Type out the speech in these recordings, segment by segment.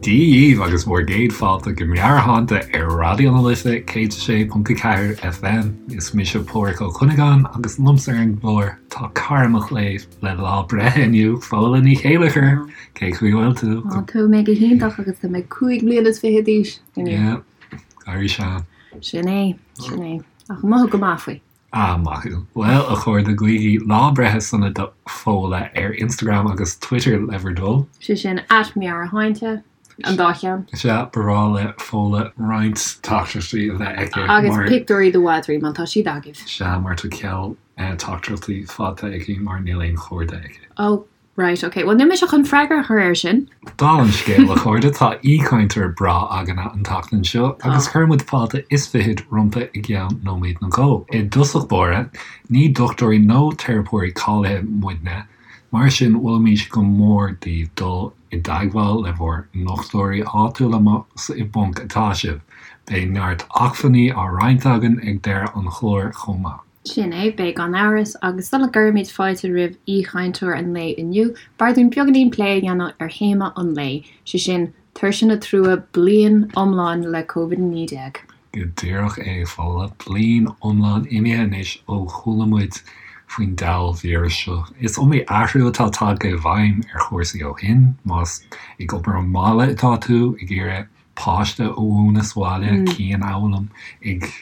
Dia dhíbh agus bhur gcéad fáilte go Meabhairshláinte ar Raidió na Life 106.4 FM. Is mise Pádhraic Ó Cuinneagáin agus liomsa ar an gclár tá cara mo chléibh le lá breithe inniu, Fódhla Ní Chéilleachair. Cén chaoi a bhfuil tú? Á, tá mé go hiontach agus tá mé 25 bliana d'aois inniu. Yeah, éirí sean. Sin é, sin é. Ach mothú go maith faoi. Ah, maith thú. Bhuel, a chairde, guígí lá breithe sona do Fódhla ar Instagram agus Twitter le bhur dtoil. Sé sin at meabhairshláinte, an dá cheann. Sea, ba bhreá le Fódhla roinnt teachtaireachtaí a bheith aici mar. Agus pictiúirí de mhadraí, má tá siad agaibh. Sea, mar tá ceal teachtaireachtaí faighte aici mar níl aon chairde aici. Ó, Right, ok. Bhuel, níl mise chun freagra a chur air sin. Dála an scéil, a chairde, tá aoichainteoir breá againne an tseachtain seo agus cuirfidh muid fáilte is fichead roimpi i gceann nóiméad nó dhó. I dtosach báire, ní dochtúirí nó teiripeoirí cáilithe muidne, mar sin mholfaimis go mór daoibh dul i dteagmháil le bhur ndochtúirí áitiúla más i bponc atá sibh. Beidh neart acmhainní á roinnt againn ag deireadh an chláir chomh maith. Sin é, beidh gan amhras, agus sula gcuirimid fáilte roimh aoichainteoir an lae inniu, b'fhearr dúinn beagáinín plé a dhéanamh ar théama an lae, sé sin, tuirse nó trua, bliain iomlán le Covid-19. Go díreach é, a Fhódhla, bliain iomlán imithe anois ó chuala muid faoin diabhal víreas seo. Is iomaí athrú atá tagtha i bhfeidhm ar chúrsaí ó shin, más ag obair ón mbaile atá tú, ag iarraidh páiste a mhúineadh sa bhaile, cianfhoghlaim, ag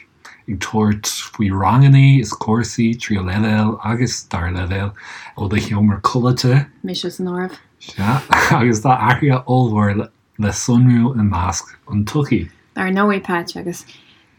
ag tabhairt faoi rangannaí is cúrsaí tríú leibhéal agus dara leibhéal ó do sheomra codlata. Mise san áireamh. Sea, agus tá athruithe ollmhóra le sonrú i measc an tsochaí. Dar ndóigh, Patch, agus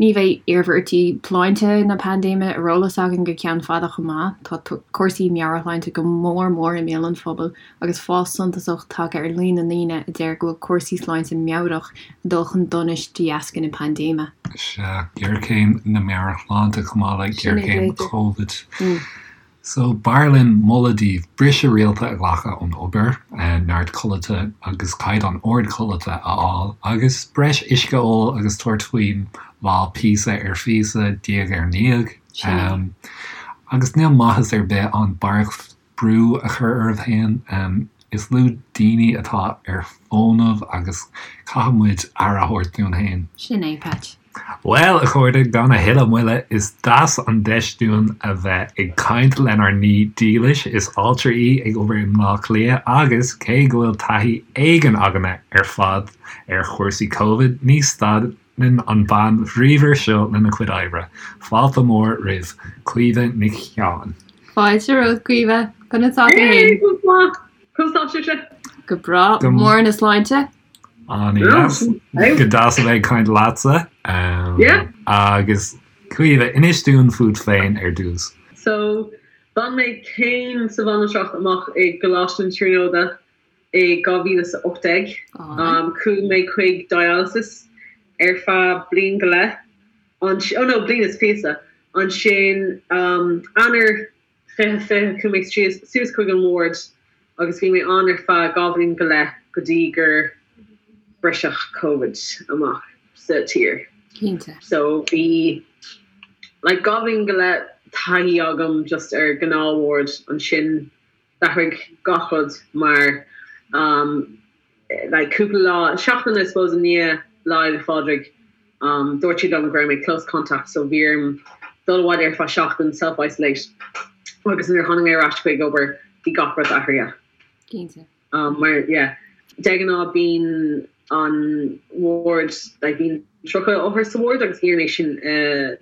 ní bheidh iarmhairtí sláinte na paindéime ar eolas againn go ceann fada chomh maith. Tá cúrsaí meabhairshláinte go mór mór i mbéal an phobail agus fás suntasach tagtha ar líon na ndaoine a deir go bhfuil cúrsaí sláinte meabhrach ag dul chun donais de dheasca na paindéime. Sea, géarchéim na meabhairshláinte chomh maith le géarchéim Covid. So, b'fhearr linn moladh daoibh briseadh rialta a ghlacadh ón obair, neart codlata agus caighdeán ard codlata a fháil, agus breis uisce a ól agus tabhairt faoin lá píosa ar phíosa, diaidh ar ndiaidh. Agus níl maitheas ar bith ann barraíocht brú a chur oraibh féin. Is lú daoine atá ar fónamh agus caithfidh muid aire a thabhairt dúinn féin. Sin é, Patch. Bhuel, a chairde, gan a thuilleadh moille, is deas an deis dúinn a bheith ag caint lenár n-aoi dílis. Is altra í ag obair i mBleá Cliath agus, cé go bhfuil taithí éigin againne ar fad ar chúrsaí Covid, ní stad Lean an bhean bhríomhar seo lena cuid oibre. Fáilte mhór roimh Caoimhe Nic Sheáin. Fáilte romhat, Caoimhe. Conas tá tú féin? Go maith. Conas tá sibhse? Go breá. Mór na sláinte. An-deas. Go deas a bheith ag caint leatsa. Yeah. Agus Caoimhe, inis dúinn fút féin ar dtús. So, bhain mé céim sa bhanaltracht amach i gColáiste na Tríonóide i 2018. Chuaigh mé chuig dialysis ar feadh bliain go leith, oh no, bliain is píosa. Ansin Eanáir 2020 chuaigh mé suas chuig an ward agus bhí mé ann ar feadh 2 bhliain go leith go dtí gur briseadh Covid amach sa tír. Cinnte. So bhí like 2 bhliain go leith taithí agam just ar gnáth ward ansin D'athraigh gach rud mar like cúpla lá, seachtain I suppose i ndiaidh Lá Fhéile Phádraig dúirt siad liom go raibh mé close contact so bhí orm dul abhaile ar feadh seachtain, self isolate agus nuair a tháinig mé ar ais chuig obair bhí gach rud athraithe. Cinnte. Mar yeah de ghnáth bíonn an ward like bíonn 30 othar sa ward agus bhí orainn é sin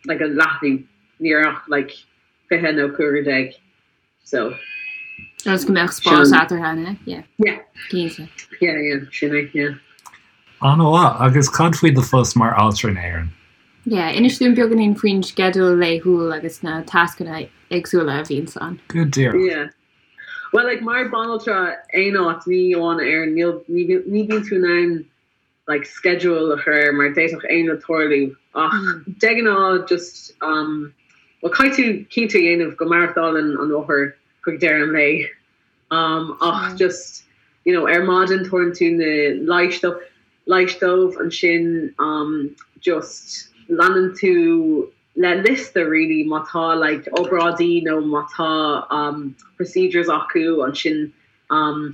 like a leathnú ní raibh ach like 20 nó 15 So. Agus go mbeadh spás eatarthu, an ea? Yeah. Yeah. Cinnte. Yeah, yeah, sin é, yeah. An-mhaith. Agus cad faoi do phost mar altra in Éirinn? Yeah, inis dúinn beagáinín faoin sceideal laethúil agus na tascanna éagsúla a bhíonns ann. Go díreach. Yeah. Well, like, mar banaltra aon áit, ní amháin in Éirinn, níl, ní, ní bhíonn tú in ann like schedule a chur air mar d'fhéadfadh aon rud tarlú ach de ghnáth just um well caithfidh tú cinnte a dhéanamh go maireachtálann an othar chuig deireadh an lae um ach just you know ar maidin tabharann tú na leighis dó leighis dóibh ansin um just leanann tú le liosta really má tá like obráidí nó má tá um procedures acu ansin um.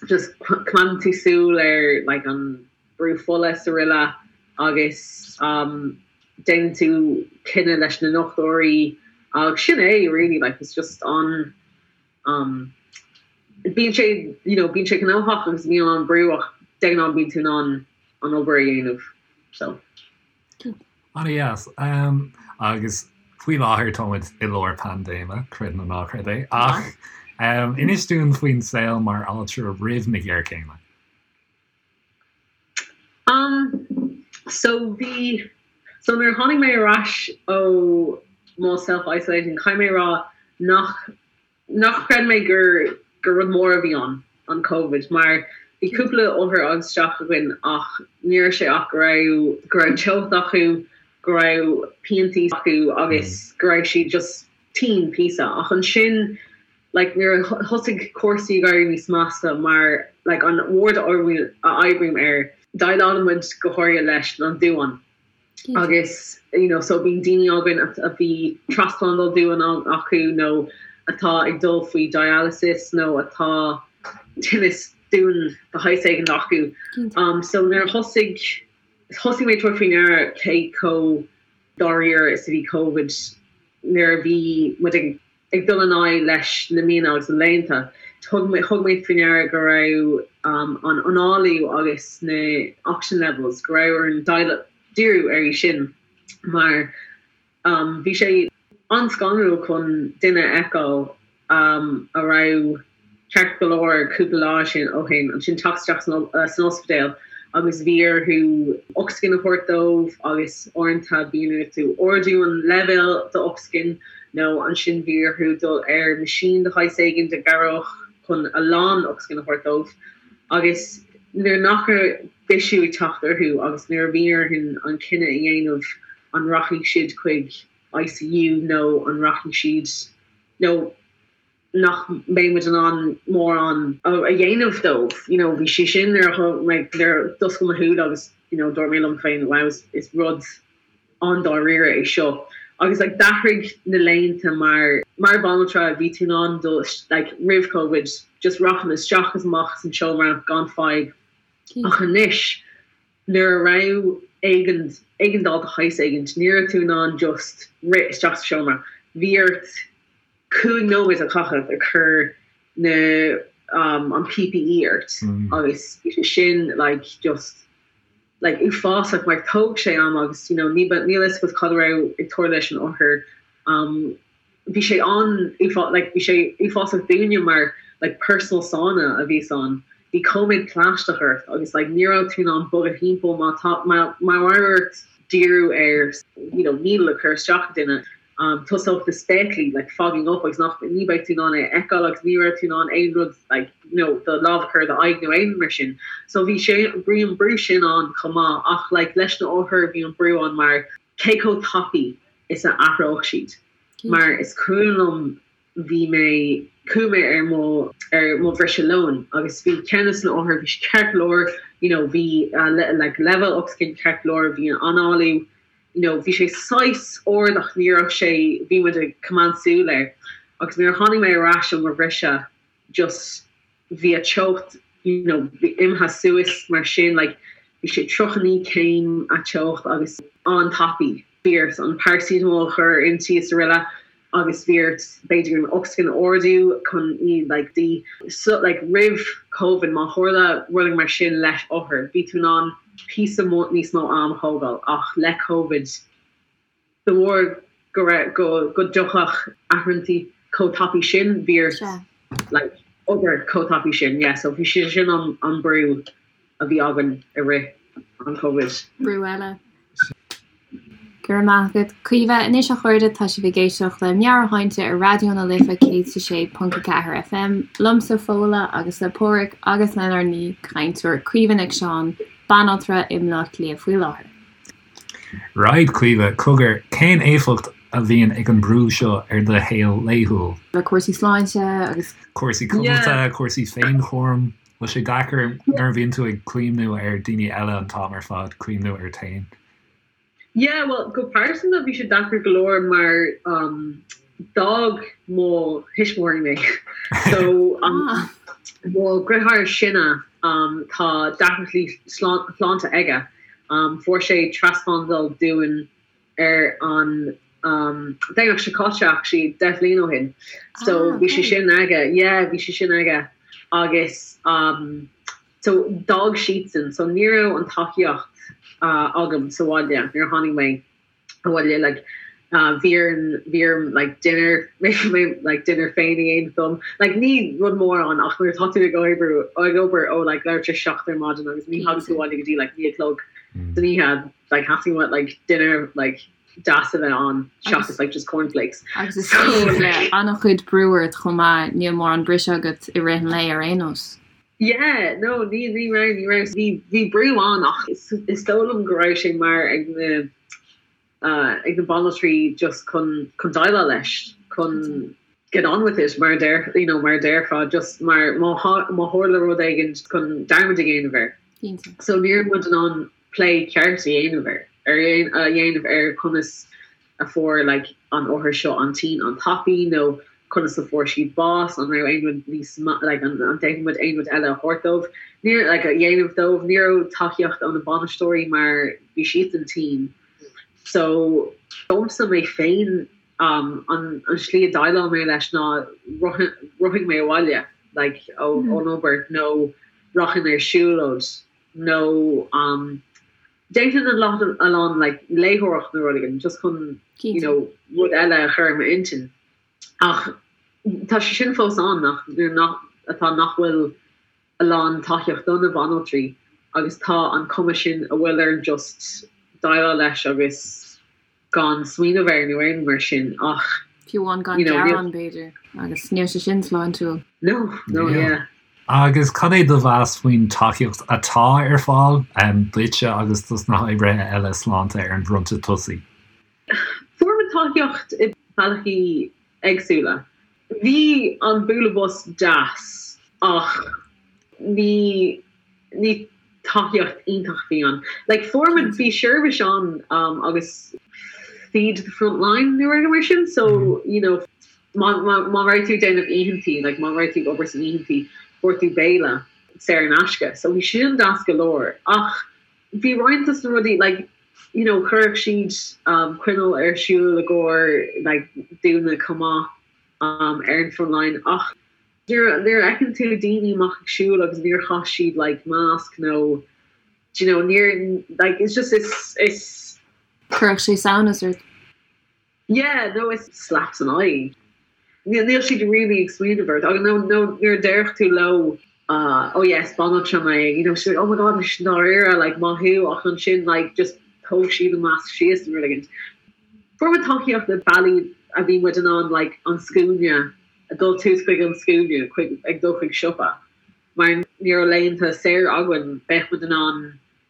Just coimeádann tú súil ar like an brú fola is araile agus um déanann tú cinneadh leis na ndochtúirí agus sin é really like it's just an um bíonn sé you know bíonn sé gnóthach agus bíonn an brú ach de ghnáth bíonn tú in ann an obair a dhéanamh so. An-dheas. Agus faoi láthair tá muid i lár paindéime, creid nó ná creid é, ach inis dúinn faoin saol mar altra roimh na géarchéime. Um, so bhí, so nuair a tháinig mé ar ais ó mo self-isolating, caithfidh mé a rá nach nach chreid mé gur gur rud mór a bhí ann, an Covid, mar bhí cúpla othar isteach againn ach ní raibh sé ach go raibh go raibh teocht acu, go raibh piantaí acu agus go raibh siad just tinn píosa. Ach ansin like nuair a thosaigh cúrsaí ag éirí níos measa mar like an ward a oibrím air, déileálann muid go háirithe leis an duán. agus you know so bíonn daoine againn a bhí trasphlandáil duáin acu nó atá ag dul faoi dialysis nó atá tinneas duáin de shaghas éigin acu. Um so nuair a thosaigh thosaigh mé ag tabhairt faoi ndeara cé chomh dáiríre is a bhí Covid nuair a bhí muid ag Ag dul in aghaidh leis na míonna agus na laethanta, thug mé thug mé faoi ndeara go raibh an análú agus na oxygen levels, go raibh orainn díriú air sin mar bhí sé an-scanrúil chun duine a fheiceáil a raibh ceart go leor cúpla lá sin ó shin, ansin teacht isteach san ospidéal agus bhí orthu ocsaigin a thabhairt dóibh agus uaireanta bíonn orthu ardú an leibhéal d'ocsaigin nó ansin bhí orthu dul ar machine de shaghas éigin a chabhródh chun a lán ocsaigin a thabhairt dóibh agus nuair nach raibh bisiú ag teacht orthu agus nuair a bhí orthu an cinneadh a dhéanamh an rachaidh siad chuig ICU nó an rachaidh siad nó nach mbeidh muid in ann mórán a dhéanamh dóibh. You know, bhí sé sin nuair a thug mé, nuair a d'oscail mo shúile agus, you know, dúirt mé liom féin, wow, is, is rud an-dáiríre é seo. Agus like d'athraigh na laethanta mar, mar bhanaltra bhí tú in ann dul, like roimh Covid, just rachainn isteach is amach as an seomra gan fadhb. Ach anois, nuair a raibh éigean, éigeandáil de shaghas éigint, ní raibh tú in ann just rith isteach sa seomra. Bhí ort 5 nóiméad a chaitheamh ag cur na an PPE ort agus bhí sé sin like just like uafásach mar thóg sé am agus you know ní níl fhios agat cad a raibh ag tarlú leis an othar um bhí sé an like bhí sé uafásach dúinne mar like personal sauna a bhí ann bhí cóiméad plaisteach ort agus like ní raibh tú in ann bogadh thimpeall má tá má má raibh ort díriú ar you know needle a chur isteach i duine Tosódh na spéaclaí like fogging up agus nach, ní bheadh tú in ann é a fheiceáil agus ní raibh tú in ann aon rud like you know do lámh a chur ar do aghaidh nó aon rud mar sin. So bhí sé, bhí an brú sin ann chomh maith ach like leis na othair bhí an brú ann mar cé chomh tapaidh is a athródh siad mar is cuimhin liom bhí mé, chuaigh mé ar mo, ar mo bhriseadh lóin agus bhí ceann de na othair, bhí sé ceart go leor you know bhí like leibhéal ocsaigin ceart go leor, bhí an análú you know bhí sé saghas ard ach ní raibh sé, bhí muid ag coimeád súil air agus nuair a tháinig mé ar ais ó mo bhriseadh just bhí a teocht you know bhí imithe suas mar sin like bhí sé 39 céim a teocht agus an-tapaidh. Bhí ort an paracetamol a chur inti is araile agus bhí ort b'fhéidir an ocsaigin a ardú chun í like di so like roimh Covid má tharla rud mar sin leis othar bhí tú in ann píosa níos mó am a thógáil ach le Covid de bharr go raibh go go dtiocfadh athruithe chomh tapaidh sin bhí ort like obair chomh tapaidh sin yeah so bhí sé sin an an brú a bhí againn i rith an Covid. Brú eile. Go raibh maith agat, Caoimhe. Anois a chairde, tá sibh ag éisteacht le Meabhairshláinte ar Raidió na Life 106.4 FM, liomsa Fódhla agus le Páraic agus lenár n-aoichainteoir Caoimhe Nic Seáin, banaltra i mBleá Cliath faoi láthair. Right, Caoimhe, cogar, cén éifeacht a bhíonn ag an brú seo ar do shaol laethúil? Le cúrsaí sláinte agus. Cúrsaí codlata, cúrsaí féinchúraim. Bhfuil sé deacair nuair a bhíonn tú ag cuimhniú ar daoine eile an t-am ar fad, cuimhniú ort féin? Yeah, bhuel, go pearsanta bhí sé deacair go leor mar um, d'fhág mo thuismitheoirí mé. So, um, ah. Mo dheartháir is sine tá deacrachtaí sláinte aige. Fuair sé trasphlandáil duan ar an Domhnach seo caite actually, 10 bhliain ó shin. So bhí sé sin aige, yeah, bhí sé sin aige agus so d'fhág siadsan, so ní raibh an tacaíocht agam sa bhaile nuair a tháinig mé. abhaile like bhí orm bhí orm like dinner like dinner féin a dhéanamh dom like ní rud mór ann ach nuair atá tú ag oibriú ag obair ó like leathuair tar éis 7 ar maidin agus ní thagann tú abhaile go dtí like 9 a chlog san oíche like theastaigh uait like dinner like deas a bheith ann seachas like just cornflakes. Agus is le an-chuid brú ort chomh maith níl mórán briseadh agat i rith an lae ar aon nós. Yeah, no, ní, ní raibh, ní raibh. Bhí, bhí brú ann ach is, is dóigh liom go raibh sé mar ag na, ag na banaltraí just chun, chun déileáil leis, chun get on with it mar a deir, you know, mar a déarfá, just mar má, má tharla rud éigin chun dearmad a dhéanamh air. Cinnte. So ní raibh muid in ann plé ceart a dhéanamh air, ar, a dhéanamh ar conas a fuair like an othar seo an tinn an-tapaidh nó conas a fuair siad bás, an raibh aon rud níos like an bhféadfadh muid aon rud eile a thabhairt dóibh, níor like a dhéanamh dóibh, ní raibh tacaíocht ó na bainisteoirí mar bhí siadsan tinn. So domsa mé féin um, an, an slí a dhéileáil mé leis ná rothaigh mé abhaile like ó, ón obair nó rachainn ar siúlóid nó um, Déanfainn a lán a lán like léitheoireacht nó rud éigin just chun you know rud eile a chur i m'intinn. Ach tá sé sin fós ann nach nuair nach atá nach bhfuil a lán tacaíocht do na banaltraí agus tá an cuma sin a bhfuil orainn just déileáil leis agus gan smaoineamh air nó aon mar sin ach Fiú amháin gan you know, gearán b'fhéidir agus níl sé sin sláintiúil. No, no, yeah. Agus cad é do mheas faoin tacaíocht atá ar fáil duitse agus dos na hoibrithe eile sláinte ar an bhfronta tosaigh? Fuair muid tacaíocht i bealaí éagsúla. Bhí an bualadh bos deas ach ní ní tacaíocht iontach a bhí ann. Like fuair muid, bhí seirbhís ann um, agus feed the front line nó rud mar sin, so you know má, má, má raibh tú ag déanamh oícheantaí, like má raibh tú ag obair san oícheantaí, fuair tú béile saor in aisce. So bhí sin deas go leor. Ach bhí roinnt dos na rudaí, like, you know, chuirfeadh siad um, coinneal ar siúl i gcomhair like, daoine chomh maith um, ar an front line ach Nuair a fheiceann tú daoine amach ag siúl agus níor chaith siad like masc nó do you know níor like it's just it's it's. Chuirfeadh sé samhnas ort. Yeah no it's slap san aghaidh. Níl níl siad really ag smaoineamh ort agus nó nó nuair a déarfadh tú leo uh oh yes banaltra mé you know siad like oh my god is dáiríre like maith thú ach ansin like just thóg siad an masc síos nó rud éigin. Fuair muid tacaíocht i bealaí a bhí muid in ann like an scuaine a dul suas chuig an scuaine chuig ag dul chuig siopa mar ní raibh laethanta saor againn bheadh muid in ann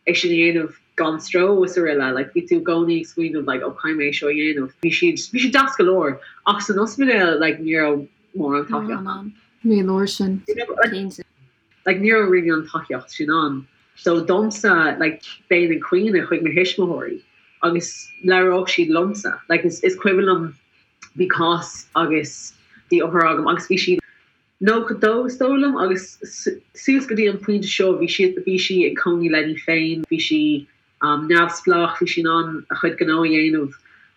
é sin a dhéanamh gan stró is araile like bhí tú i gcónaí ag smaoineamh like oh caithfidh mé é seo a dhéanamh bhí siad bhí siad deas go leor ach san ospidéal like ní raibh mórán tacaíocht ann. Ní leor sin, cinnte. Like ní raibh really an tacaíocht sin ann so domsa like bheinn ag caoineadh chuig mo thuismitheoirí agus labhródh siad liomsa like is is cuimhin liom bhí cás agus bhí othar agam agus bhí sí 92 is dóigh liom agus suas go dtí an pointe seo bhí sí bhí sí ag cónaí léi féin bhí sí um, neamhspleách bhí sí in ann a chuid gnó a dhéanamh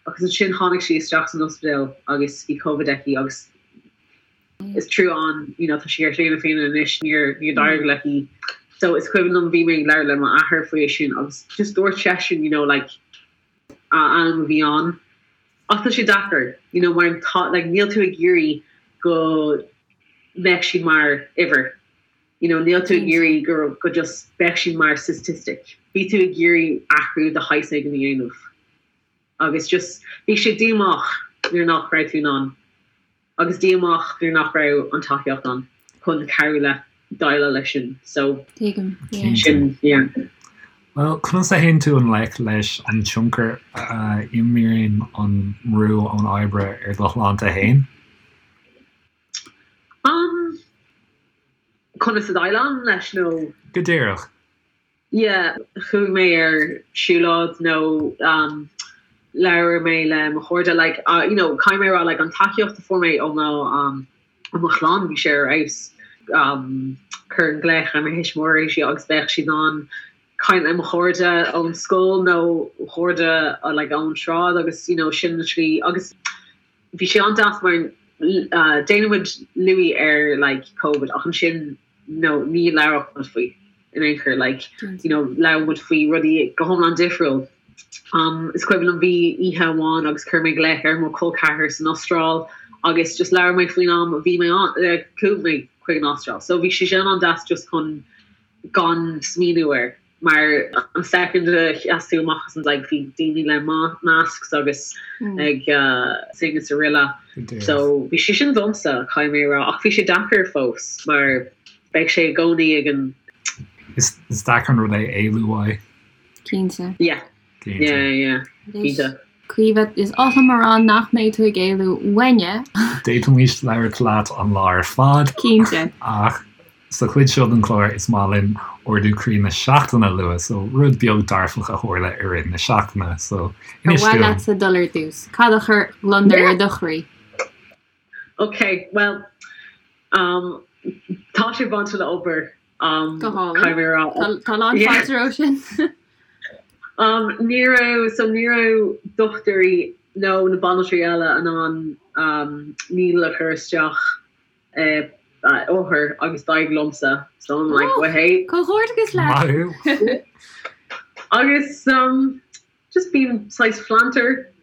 agus ansin tháinig sí isteach san ospidéal agus bhí Covid aici agus is trua an you know tá sí ar shlí na Féinne anois níor níor d'éirigh léi so is cuimhin liom bhí mé ag labhairt le m'athair faoi sin agus just dúirt seisean you know like am a bhí ann ach tá sé deacair you know mar tá like níl tú ag iarraidh go mbeadh siad mar uimhir you know níl tú ag iarraidh go go just beadh siad mar statistic bhí tú ag iarraidh athrú de shaghas éigin a dhéanamh agus just bhí sé díomách nuair nach raibh tú in ann agus díomách nuair nach raibh an tacaíocht ann chun cabhrú leat déileáil leis sin so Tuigim, yeah. sin yeah. Bhuel, conas a théann tú i ngleic leis an tionchar a imríonn an mbrú ón oibre ar do shláinte féin? Um, conas a dhéileálaim leis nó? Go díreach. Yeah, chuaigh mé ar siúlóid nó um, labhair mé le mo chairde, like, uh, you know, caithfidh mé a rá, like, an tacaíocht a fuair mé ó mo, um, ó mo chlann, bhí sé ar fheabhas. um chuirfinn glaoch ar mo thuismitheoirí agus bheadh siad in ann caint le mo chairde ón scoil nó chairde like ón sráid agus you know sin an tslí agus bhí sé an-deas mar déanann muid luí ar like Covid ach ansin no ní labhródh muid faoi in aon chor like you know labhair muid faoi rudaí go hiomlán difriúil. Um is cuimhin liom bhí oíche amháin agus chuir mé glaoch ar mo chol ceathar san Astráil agus just labhair mé faoin am a bhí mé ann eh, chuaigh mé chuig an Astráil. So bhí sé sin an-deas just chun gan smaoineamh air mar an second a sheas tú amach as an like bhí daoine le masks agus ag sing is araile so bhí sé sin domsa caithfidh mé a rá ach bhí sé deacair fós mar beidh sé i gcónaí ag an Is deacair an rud é éalú uaidh. Cinnte. Yeah. Yeah, yeah. Cinnte. Caoimhe, is oth liom a rá nach mbeidh tú ag éalú uainne. D'fhéadfaimis labhairt leat an lá ar fad. Cinnte. Ach sa chuid seo den chlár is maith linn ardú croí na seachtaine a lua, so rud beag dearfach a tharla i rith na seachtaine. So, inis dúinn. Ar mhaith leatsa dul ar dtús? Cad a chuir gliondar ar do chroí? Ok, bhuel, um, tá sé bainte le obair. Um, Go hálainn. Tá lán fáilte roimhe sin. Um, ní raibh, so ní raibh dochtúirí nó na banaltraí eile in ann um, needle a chur isteach i uh, othar agus d'éirigh liomsa. So I'm like, well, hey. Comhghairdeachas leat. Maith thú. Agus um, just bím saghas flanter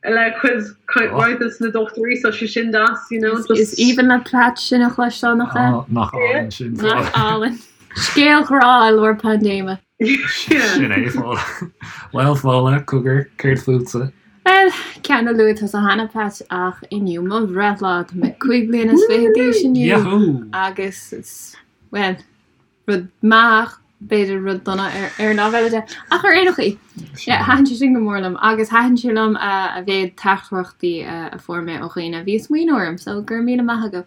le cuid roinnt des na dochtúirí so sé sin deas, you know, just. Is aoibhinn le Pat sin a chloisteáil, nach ea? Á, nach álainn sin, Fódhla. Nach álainn. Scéal grá i lár paindéime. Sin é, Fódhla. Bhuel, Fódhla, cogar, céard fútsa? Bhuel, ceann a luaigh tusa cheana, Pat, ach inniu mo bhreithlá. Tá mé 25 bliana d'aois inniu. Yahoo! Agus is, bhuel, rud maith ach b'fhéidir rud dona ar ar an lámh eile de. Ach ar aon chaoi, yeah, thaitin sé sin go mór liom agus thaitin sé liom a mhéad teachtaireachtaí a fuair mé ó dhaoine a bhí ag smaoineamh orm, so go raibh míle maith agaibh.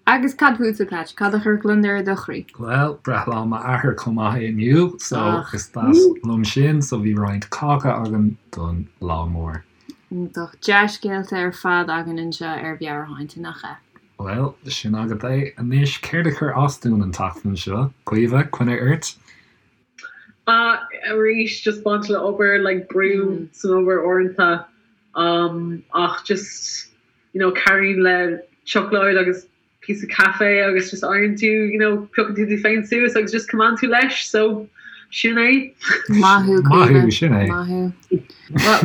Agus cad fútsa, Pat? Cad a chuir gliondar ar do chroí? Bhuel, breithlá m'athar chomh maith é inniu, so is deas liom sin, so bhí roinnt cáca againn don lá mór. Iontach. Dea-scéalta ar fad againn anseo ar Mheabhairshláinte, nach ea? Bhuel, sin agat é. Anois, céard a chuir as dúinn an tseachtain seo? Caoimhe, coinne ort? Ah, arís, just baint le obair, like brú san obair uaireanta. Um, ach just, you know, cabhraíonn le seacláid agus píosa caife agus just éiríonn tú, you know, piocann tú tú féin suas agus just coimeádann tú leis, so sin é. Maith thú, Maith thú, sin é. Maith thú.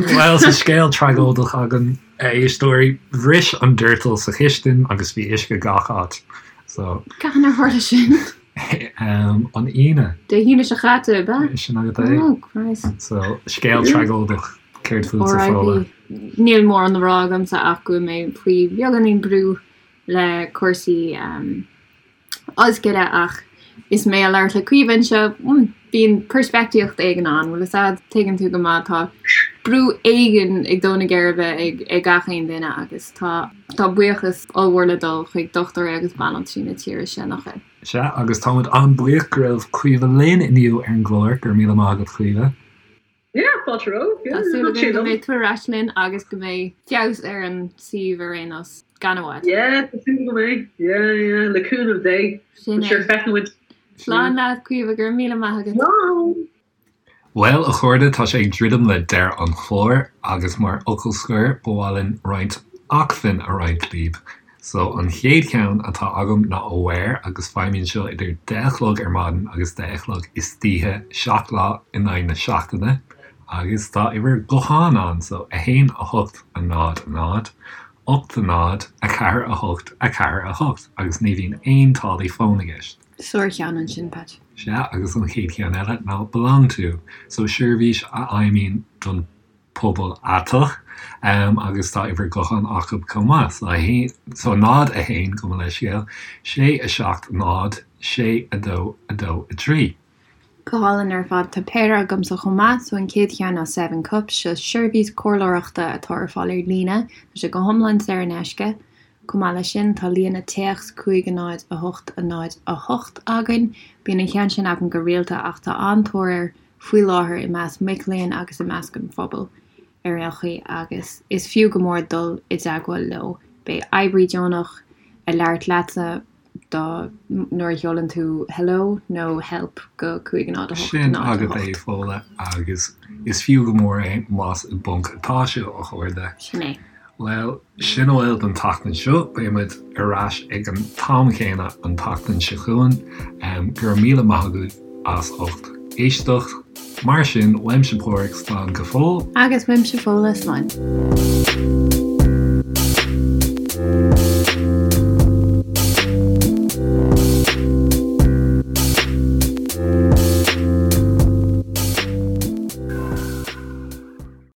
Bhuel, tá scéal tragóideach againn. A éisteoirí, bhris an doirteal sa chistin agus bhí uisce gach áit. So. Cathain ar tharla sin? An Aoine. Dé hAoine seo chaite, ab ea? Sin agat é. Oh, Christ. So, scéal tragóideach, céard fútsa, Fódhla? R.I.P. Níl mórán le rá agamsa ach go bhfuil mé faoi bheagáinín brú le cúrsaí ollscoile ach is mé ag labhairt le Caoimhe anseo, bíonn peirspictíocht éigin ann, bhfuil fhios a'd, tuigeann tú go maith, tá brú éigin ag dó na geirbe ag gach aon duine agus tá tá buíochas ollmhór le dul chuig dochtúirí agus banaltraí na tíre seo, nach ea? Sea, agus táimid an-bhuíoch go raibh Caoimhe linn inniu ar an gclár, go raibh míle maith agat Caoimhe. Yeah, fáilte romhat. Tá súil againn go mbeidh tú ar ais linn agus go mbeidh feabhas ar an suíomh ar aon nós, gan i bhfad. Yeah, tá súil go mbeidh. Yeah, yeah, le cúnamh Dé. Sin é. Sure, feicfidh muid. Slán leat, Caoimhe, go raibh míle maith agat. Slán! Bhuel, a chairde, tá sé ag druidim le deireadh an chláir agus mar fhocal scoir, ba mhaith linn roinnt acmhainn a roinnt libh. So, an chéad cheann atá agam ná Aware agus feidhmíonn seo idir deich a chlog ar maidin agus deich a chlog istoíche, 7 lá in aghaidh na seachtaine agus tá uimhir gutháin ann, so 1 8 0 0 8 0 4 8 4 8 agus ní bhíonn aon táillí fóin i gceist. Sár-cheann ansin, Pat. Sea, agus an chéad cheann eile ná Belong To, so seirbhís a fheidhmíonn don pobal aiteach agus tá uimhir gutháin acu chomh maith, so 1, so 0 1, gabh mo leithscéal, 6 7 0 6 2 2 3. Go hálainn ar fad. Tá péire agamsa chomh maith, so an chéad cheann ná Seven Cups, seo seirbhís comhairleoireachta atá ar fáil ar líne, tá sé go hiomlán saor in aisce. Chomh maith leis sin, tá líne téacs 5 0 8 0 8 againn. Bíonn an ceann sin againn go rialta ach tá an-tóir air faoi láthair i measc mic léinn agus i measc an phobail ar aon chaoi agus is fiú go mór dul i dteagmháil leo. Beidh oibrí deonach ag labhairt leatsa. do nuair a sheolann tú hello nó help go 5 0 8 Sin 0 agat 8. é, Fódhla, agus is fiú go mór é más i bponc atá sibh, a chairde. Sin é. Bhuel, sin a bhfuil don tseachtain seo. Beidh muid ar ais ag an t-am chéanna an tseachtain seo chugainn. Go raibh míle maith agaibh as ucht éisteacht. Mar sin, uaimse Páraic, slán go fóill. Agus uaimse Fódhla, slán.